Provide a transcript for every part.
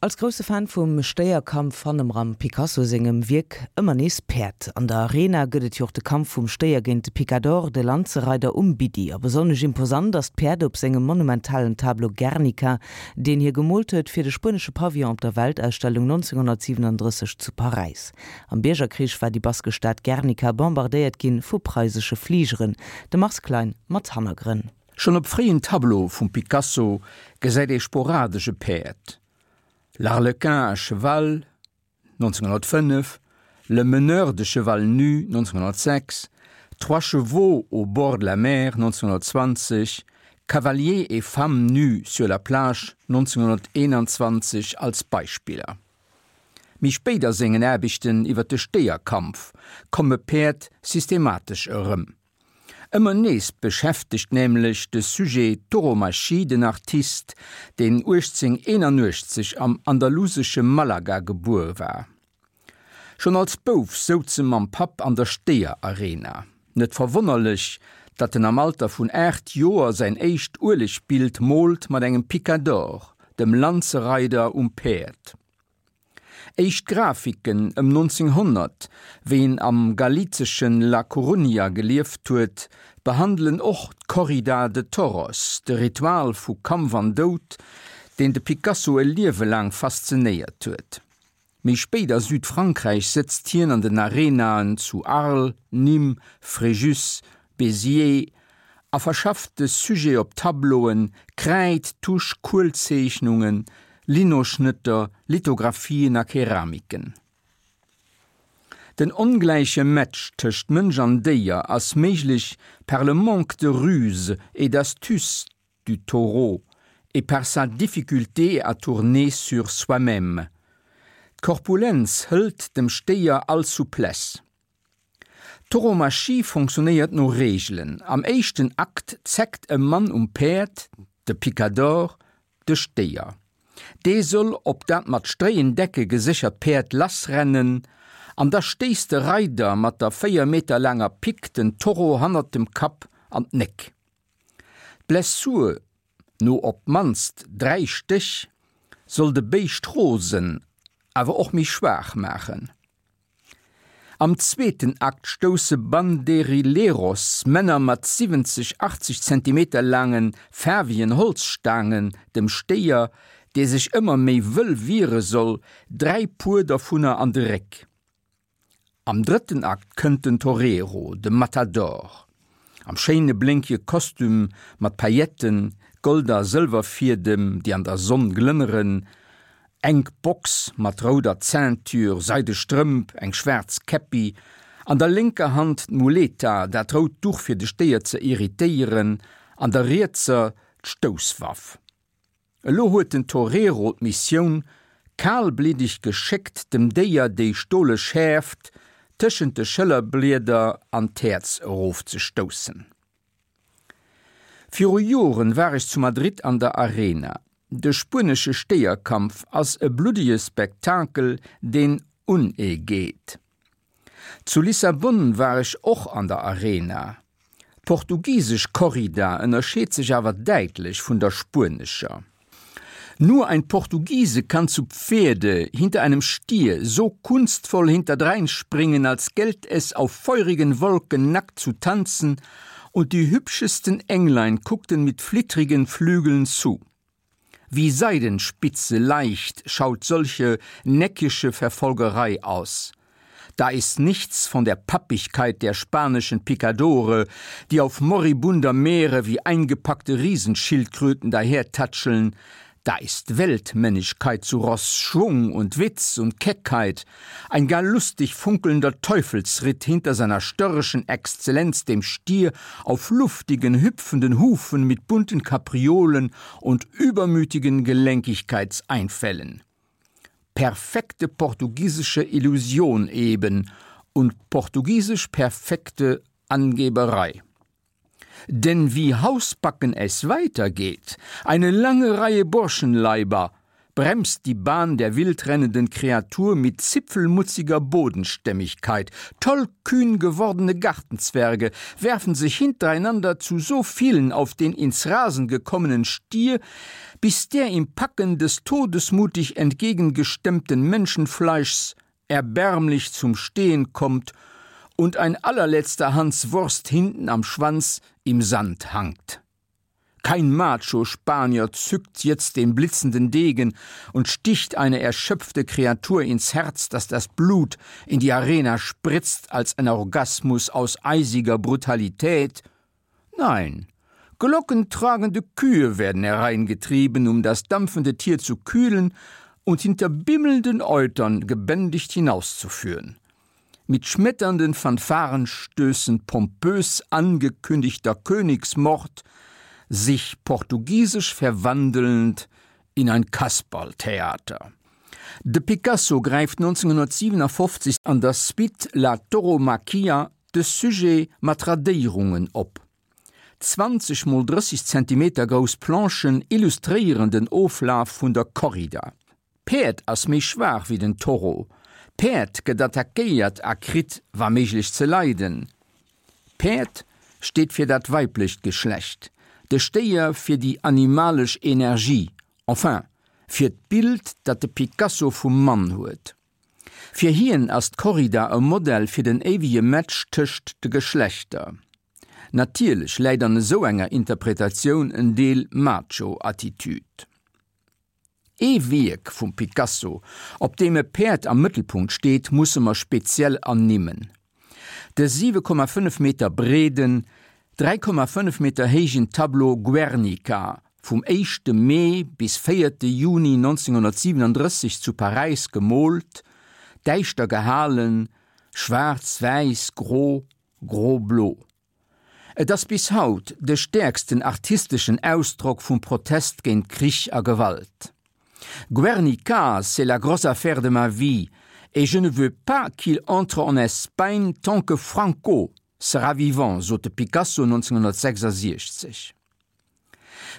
Als grousse Fan vum Stéierkampf fanne mer am Picasso sengem Wierk ëmmer nees Päerd. An der Arena gëtt et jo och de Kampf vum Stéier géint de Picador, de Lanzereider um Biddi. A besonnesch imposant ass d'Päerd op sengem monumentalen Tableau Guernica, deen hie gemoolt huet fir de spuenesche Pavillon op der Weltausstellung 1937 zu Paräis. Am Biergerkrich war déi baskesch Stad Guernica bombardéiert ginn vu preisesche Fligeren. De Mars Klein mat Hannergrënn. Schonn op fréien Tableaue vum Picasso gesäit ee sporadesch e Päerd, L'Arlequin à cheval, 1905, Le meneur de cheval nu, 1906, Trois chevaux au bord de la mer, 1920, Cavalier et femme nus sur la plage, 1921 als Beispiller. Méi spéit a sengen Aarbechten iwwer de Stéierkampf komme Päerd systematesch erëm. Ëmmer nees beschäftegt nämlech de Sujet Tauromachie den Artist, deen 1881 am andalusesche Malaga gebuer war. Schonn als Bouf souz e mam Papp an der Stéierarena. Net verwonnerlech, datt en am Alter vun 8 Joer säin éischt Uelegbild moolt mat engem Picador, dem Lanzereider um Päerd. Éischt Grafiken ëm 1900, wéi en am galizeschen La Coruña gelieft huet, behandelen och d'Corrida de Toros, de Ritual vu Kampf an Doud, deen de Picasso e Liewe laang faszinéiert huet. Méi spéit a Südfrankräich sëtzt hien an den Arenaen zu Arles, Nîmes, Fréjus, Béziers a verschafft de Sujet op Tableauen, Kräid, Tusch, Kuelzeechnungen, Linoschnëtter, Lithographien a Keramiken. Den ongläiche Match tëscht Mënsch an Déier ass méiglech par le manque de ruse et d'astuce du taureau et par sa difficulté à tourner sur soi-même. D'Korpulenz hëlt dem Stéier all Souplesse. D'Tauromachie fonctionnéiert no Reegelen. Am éischten Akt zeckt e Mann um Päerd, de Picador, de Stéier. Dee soll op dat mat stréien Decke geséchert Päerd lassrennen an da stéisst de Reider mat der 4 Meter laanger Pick den Taureau hannert dem Kapp an d'Néck. D'Blessur no op d'mannst 3 Stéch soll de Béischt rosen, awer och méi schwaach maachen. Am zweeten Akt stousse Banderilleros, Männer mat 70, 80 Zentimeter laangen, faarwegen Holzstaangen, dem Stéier, dee sech ëmmer méi wëll wiere soll, 3 Puer dervunner an de Réck. Am drëtten Akt kënnt den Torero, de Matador, am schéine blénkege Kostüm mat Pailletten, Gold a Sëlwerfiedem, déi an der Sonn glënneren, enk Box mat rouder Ceinture, seide Strëmp, eng schwaarz Käppi, an der lénker Hand d'Muleta, dat rout Duch fir de Stéier ze irritéieren, an der rietser d'Stousswaff. Elo huet den Torero d'Missioun, kalbliddeg geschéckt dem Déier déi stole Schäerft tëschent de Schëllerblieder an d'Häerz erofzestoussen. Viru Joren war ech zu Madrid an der Arena. De spuenesche Stéierkampf ass e bluddege Spektakel, deen un ee geet. Zu Lissabon war ech och an der Arena. D'portugisesch Corrida ënnerscheet sech awer däitlech vun der spuenescher. Nur ein Portugiese kann zu Pferde hinter einem Stier so kunstvoll hinterdreinspringen, als gällt es auf feurigen Wolken nackt zu tanzen, und die hübschesten Englein guckten mit flittrigen Flügeln zu. Wie Seidenspitze leicht schaut solche neckische Verfolgerei aus. Da ist nichts von der Pappigkeit der spanischen Picadore, die auf moribunder Meere wie eingepackte Riesenschildkröten dahertatscheln, da ist Weltmännigkeit zu Ross, Schwung und Witz und Keckheit, ein gar lustig funkelnder Teufelsritt hinter seiner störrischen Exzellenz dem Stier auf luftigen, hüpfenden Hufen mit bunten Kapriolen und übermütigen Gelenkigkeitseinfällen. Perfekte portugiesische Illusion eben und portugiesisch perfekte Angeberei. Denn wie Hausbacken es weitergeht, eine lange Reihe Burschenleiber. bremst die Bahn der wildrennenden Kreatur mit zipfelmutziger Bodenstämmigkeit. Tollkühn gewordene Gartenzwerge werfen sich hintereinander zu so vielen auf den ins Rasen gekommenen Stier, bis der im Packen des todesmutig entgegengestemmten Menschenfleischs erbärmlich zum Stehen kommt und ein allerletzter Hans Wurst hinten am Schwanz im Sand hangt. Kein Macho-Spanier zückt jetzt den blitzenden Degen und sticht eine erschöpfte Kreatur ins Herz, dass das Blut in die Arena spritzt als ein Orgasmus aus eisiger Brutalität. Nein, glockentragende Kühe werden hereingetrieben, um das dampfende Tier zu kühlen und hinter bimmelnden Eutern gebändigt hinauszuführen. Mit schmetternden Fanfarenstößen pompös angekündigter Königsmord, sich portugiesisch verwandelnd in ein Kasperltheater. De Picasso gräift 1957 an der Suite La Tauromaquia de Sujet mat Radéierungen op. 20 mol 30 Zentimeter grouss Planchen illustréieren den Oflaf vun der Corrida. D'Päerd ass méi schwaach wéi den Toro. D'Päerd gëtt attackéiert a kritt wa méiglech ze leiden. D'Päerd steet fir dat weiblecht Geschlecht, de Stéier fir déi animalesch Energie, enfin fir d'Bild dat de Picasso vum Mann huet. Fir hien ass d'Corrida e Modell fir den éiwege Match tëscht de Geschlechter. Natierlech läit an esou enger Interpretatioun en Deel Macho-Attitude. Ee Wierk vum Picasso, op deem e Päerd am Mëttelpunkt steet, musse mer speziell ernimmen. De 7,5 Meter breeden, 3,5 Meter héijen Tableau Guernica, vum éischte Mee bis véierte Juni 1937 zu Paräis gemoolt, däischter gehalen, schwaarz, wäiss, gro, gro-blo. Et ass bis haut de stäerksten artisteschen Ausdrock vum Protest géint Krich a Gewalt. Guernica, c'est la grosse affaire de ma vie et je ne veux pas qu'il entre en Espagne tant que Franco sera vivant, sot de Picasso 1966.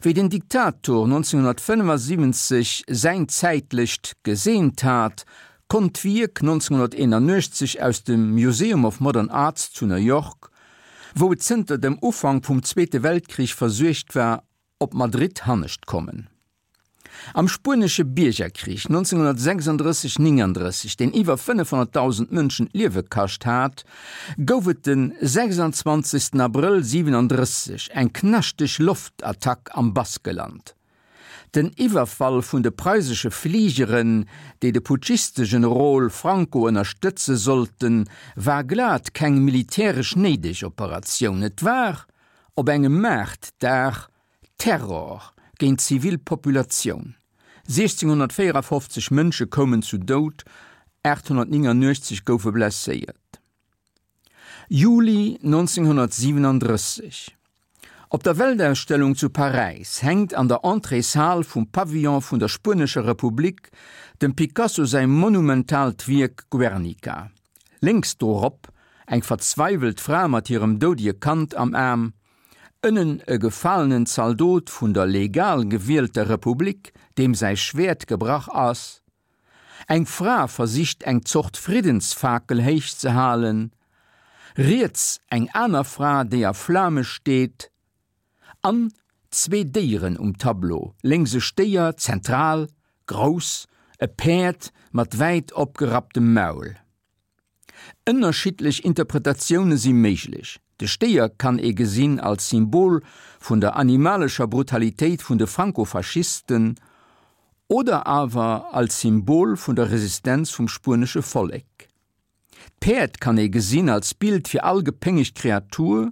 Wéi den Diktator 1975 säin zäitlecht geseent hat, konnt d'Wierk 1981 aus dem Museum of Modern Arts zu New York, wou et zënter dem Ufank vum Zweete Weltkrich versuergt war, op Madrid hannescht kommen. Am Spuenesche Biergerkrich 1936, 39, deen iwwer 500.000 Mënschen d'Liewe kascht hat, gouf et de 26 Abrëll 37 eng knaschteg Loftattack am Baskeland. Den Iwwerfall vun de preisesche Fligeren, déi de Putschiste-Generol Franco ënnerstëtze sollten, war glat keng militäresch néideg Operatioun. Et war op engem Maartdag Terror géint d'zivil Populatioun, 1654 Mënsche koumen zu Doud, 889 goufe blesséiert. Juli 1937, Op der Weltausstellung zu Paräis hänkt an der Entréeshal vum Pavillon vun der Spuenescher Republik dem Picasso säi monumentaalt Wierk Guernica. Lénks dorop eng verzweiwelt Fra mat hirem doudege Kand am Aarm, Ënnen e gefalenen Zaldot vun der legal gewielter Republik, deem säi Schwäert gebrach ass. Eng Fra versicht eng Zort Friddensfakel héich ze halen. Riets eng aner Fra, déi a Flame steet. An zwee Déieren um Tableau, lénks e Stéier, zentral, grouss, e Päerd mat wäit opgerapptem Maul. Ënnerschiddlech Interpretatioune si méiglech. De Stéier kann ee gesinn als Symbol vun der animalescher Brutalitéit vun de Franco-Faschisten oder awer als Symbol vun der Resistenz vum spuenesche Vollek. D'Päerd kann ee gesinn als Bild fir all gepéngegt Kreatur,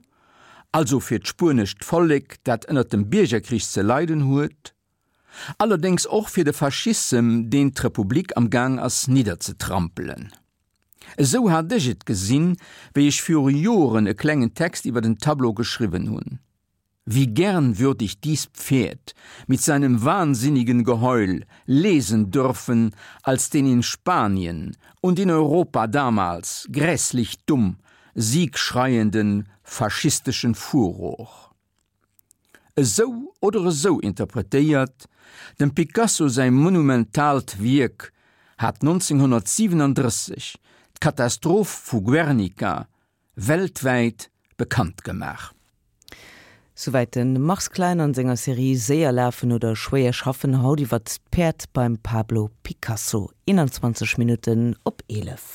also fir d'spuenescht Vollek, dat ënner dem Biergerkrich ze leiden huet. Allerdéngs och fir de Faschissem, deen d'Republik am Gaang ass nidderzetrampelen. Esou hat ech et gesinn, wéi ech viru Joren e klengen Text iwwer den Tableau geschriwwen hunn. Wie gern würd ich dies Pferd mit seinem wahnsinnigen Geheul lesen dürfen, als den in Spanien und in Europa damals grässlich dumm siegschreienden faschistischen Furor. Esou oder esou interpretéiert, dem Picasso säi monumentaalt Wierk hat 1937 d'Katastroph vu Guernica weltwäit bekannt gemaach. Souwäit de Mars Klein an senger Serie Séier lafen oder schwéier schaffen, haut iwwert d'Päerd beim Pablo Picasso. 21 Minutten op 11.